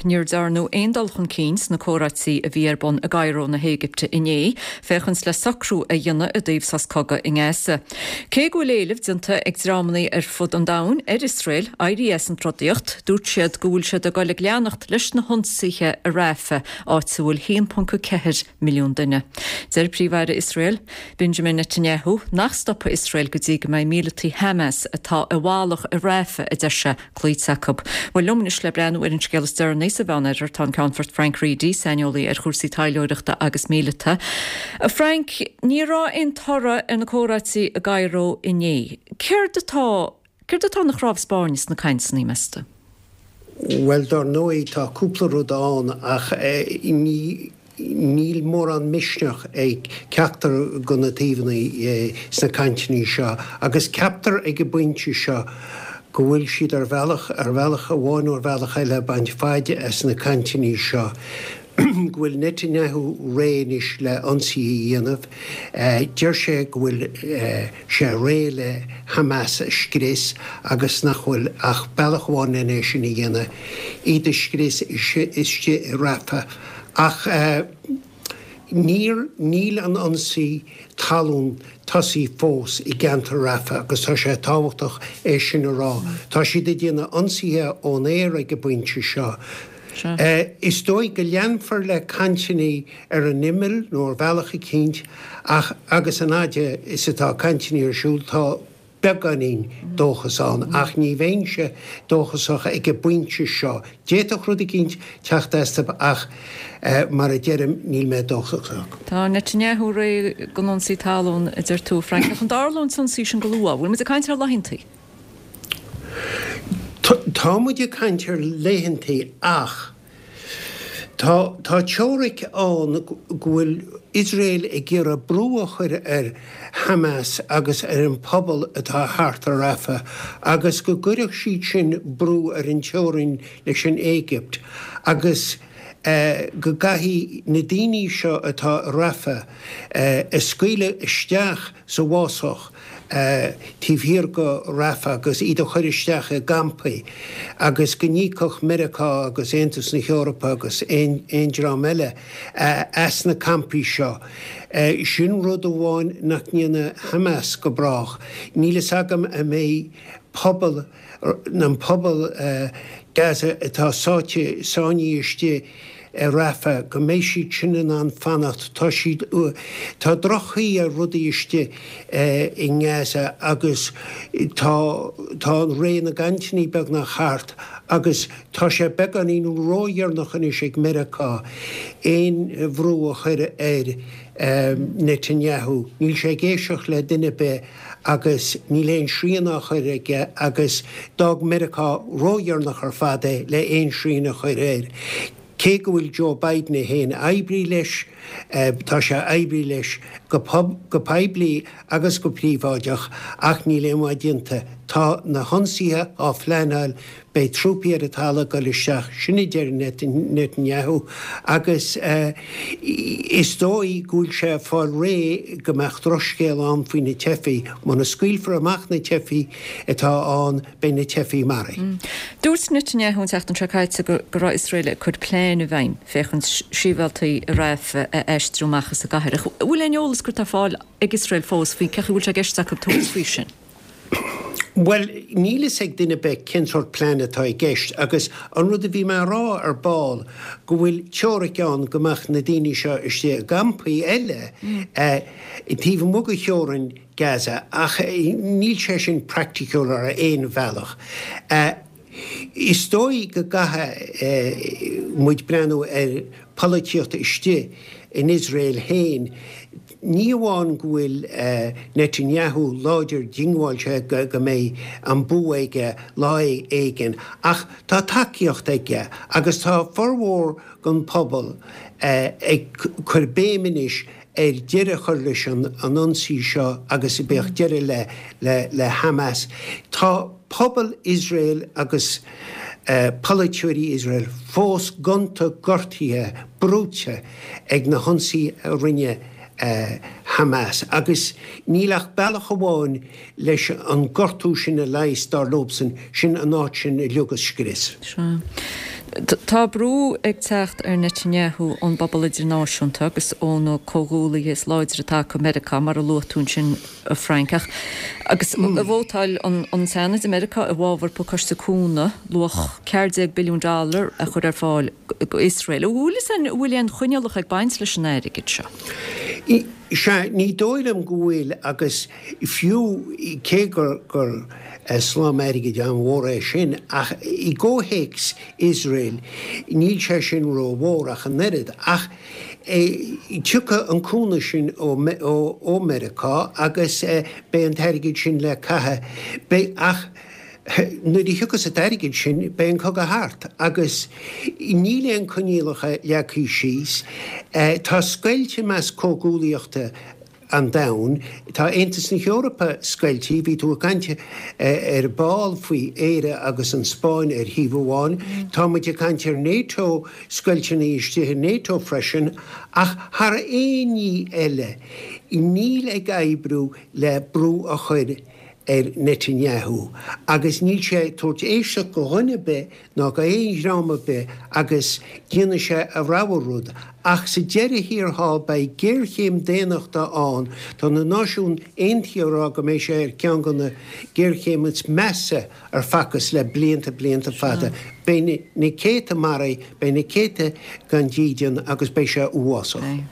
Níor dearnadh aon dul chun cinn sna comhráití a bhí ar bun i gCairo na hÉigipte inné, féachaint le socrú a dhéanamh i dtaobh sos cogaidh i nGaza. Cé go bhfuil éileamh déanta ag dreamanna ar fud an domhain ar Iosrael éirí as an trodaíocht, dúirt siad go bhfuil siad ag dul ag leanacht leis na hionsaithe i Rafah, áit a bhfuil 1.4 milliún duine. Deir Príomh-Aire Iosrael, Benjamin Netanyahu, nach stopfaidh Iosrael go dtí go mbeidh míleataigh Hamas atá i bhfalach i Rafah, a deir sé, cloíte acu. Bhuel, liom anois le breathnú ar an scéal is deireanaí sa Mheánoirthear tá an Ceannfort Frank Reidy, saineolaí ar chúrsaí taidhleoireachta agus míleata. A Frank, ní raibh aon toradh ar na comhráití i gCairo inné. Céard atá, céard atá ina chnámh spairne sna cainteanna, meas tú? Bhuel, dar ndóigh, tá cúpla rud ann ach ní. Níl mórán misneach ag ceachtar de na taobhanna sna cainteanna seo agus ceaptar ag an bpointe seo go bhfuil siad ar bhealach, ar bhealach amháin nó ar bhealach eile, ag baint faid as na cainteanna seo. Go bhfuil Netanyahu réidh anois le ionsaithe a dhéanamh. Deir sé go bhfuil sé réidh le Hamas a scrios agus nach bhfuil ach bealach amháin len é sin a dhéanamh, iad a scrios istigh i Rafah. Ach níor, níl an ionsaí talún tosaithe fós i gceantar Rafah agus tá sé tábhachtach é sin a rá. Tá siad ag déanamh ionsaithe ón aer ag an bpointe seo. Is dóigh go leanfar le cainteanna ar an imeall nó ar bhealach eicínt ach agus an fhaid is atá cainteanna ar siúl tá beagáinín dóchas ann, ach ní bheinnse dóchasach ag an bpointe seo. D'fhéadfadh rud eicínt teacht astu ach mar a deirim, níl mé dóchasach. Tá Netanyahu réidh don ionsaí talún, a deir tú, a Frank. Ach an dtarlódh an t-ionsaí sin go luath? Bhfuil muid ag caint ar laethantaí? Tá muid ag caint ar laethantaí ach. Tá tá teoiric ann go bhfuil Iosrael ag iarraidh brú a chur ar Hamas agus ar an phobal atá thart ar Rafah agus go gcuirfeadh siad sin brú ar an teorainn leis an Éigipt agus go gcaithfidh na daoine seo atá i Rafah a scaoileadh isteach sa bhfásach taobh thiar de Rafah agus iad a chur isteach i gcampaí agus go n-íocfadh Meiriceá agus Aontas na hEorpa agus aon dream eile as na campaí seo. Sin rud amháin nach ndéanfaidh Hamas go brách. Níl fhios agam an mbeidh pobal, an pobal Gaza atá sáite, sáinnithe istigh i Rafah, go mbeidh siad sin in ann fanacht. Tá siad, tá droch-chaoi ar rudaí istigh i nGaza agus tá, tá an ré na gcainteanna beagnach thart agus tá sé beagáinín ródheireanach anois ag Meiriceá aon bhrú a chur ar Netanyahu. Níl sé ag éisteacht le duine ar bith. agus níl aon srian á chur aige agus d'fhág Meiriceá ródheireanach ar fad é le aon srian a chur air. Cé go bhfuil Joe Biden é féin ag oibriú leis, tá sé ag oibriú leis go poiblí agus go príobháideach ach níl aon mhaith déanta. Tá na hionsaithe á phleanáil Beidh trúpaí ar an talamh ag dul isteach, sin a deir Netanyahu, agus is dóigh go bhfuil sé ag fáil réidh go mbeadh drochscéal ann faoi na teifigh. Muna scaoilfear amach na teifigh atá ann, beidh na teifigh maraithe. Dúirt Netanyahu an tseachtain seo caite go raibh Iosrael ag cur plean i bhfeidhm féachaint sibhialtaigh i Rafah a aistriú amach as an gcathair. Ach an bhfuil aon eolas curtha ar fáil ag Iosrael fós faoi cén chaoi a bhfuil sé i gceist acu tabhairt faoi sin? Bhuel, níl fhios ag duine ar bith cén sórt plean atá i gceist agus an rud a bhí mé a rá ar ball, go bhfuil teoiric ann go mbeadh na daoine seo istigh i gcampaí eile taobh amuigh de theorainn Gaza ach níl sé sin praiticiúil ar aon bhealach. Is dóigh go gcaithfidh muid breathnú ar pholaitíocht istigh in Iosrael féin. Ní amháin go bhfuil Netanyahu láidir diongbháilte go mbeidh an bua aige lá éigin ach tá tacaíocht aige agus tá formhór den phobal ag cur béim anois ar deireadh a chur leis an ionsaí seo agus bheadh deireadh le Hamas. Tá pobal Iosrael agus polaiteoirí Iosrael fós gonta gortaithe, brúite ag na hionsaithe a rinne Hamas agus níl ach bealach amháin leis an gortú sin a leigheas, dar leobsan, sin an áit sin uilig a scrios. Sea. Tá brú ag teacht ar Netanyahu ón bpobal idirnáisiúnta agus ó na comhghuaillithe is láidre atá acu, Meiriceá, mar a luaigh tú ansin, a Frank. Ach agus vótáil an Seanad i Meiriceá i bhfabhar pacáiste cúnamh luach 14 billiún dollar a chur ar fáil do Iosrael. An bhfuil fhios an bhfuil aon choinníollacha ag baint leis an airgead seo? Sea, ní dóigh liom go bhfuil agus fiú cé gur gur slám airgid an-mhór é sin ach i gcomhthéacs Iosrael níl sé sin rómhór ach an oiread. Ach tiocfaidh an cúnamh sin ó Meiriceá agus beidh an t-airgead sin le caitheamh. Beidh, ach nuair a thiocfas an t-airgead sin, beidh an cogadh thart agus níl aon coinníollacha leagtha síos. Tá scoilt i measc comhghuaillíochta an domhain. Tá Aontas na hEorpa scoiltí. Bhí tú ag caint ar ball faoi Éire agus an Spáinn ar thaobh amháin. Tá muid ag caint ar NATO, scoilteanna istigh i NATO freisin. Ach thar aon ní eile, níl ag oibriú le brú a chur ar Netanyahu agus níl sé ag tabhairt éisteacht go dhuine ar bith ná go aon dhream ar bith agus déanfaidh sé a rogha rud. Ach sa deireadh thiar thall beidh géarchéim daonnachta ann. Tá na Náisiúin Aontaithe ag rá go mbeidh sé ar cheann de na géarchéim is measa ar facthas le blianta, blianta fada. Beidh na céadta maraithe, beidh na céadta gan dídean agus beidh sé uafásach.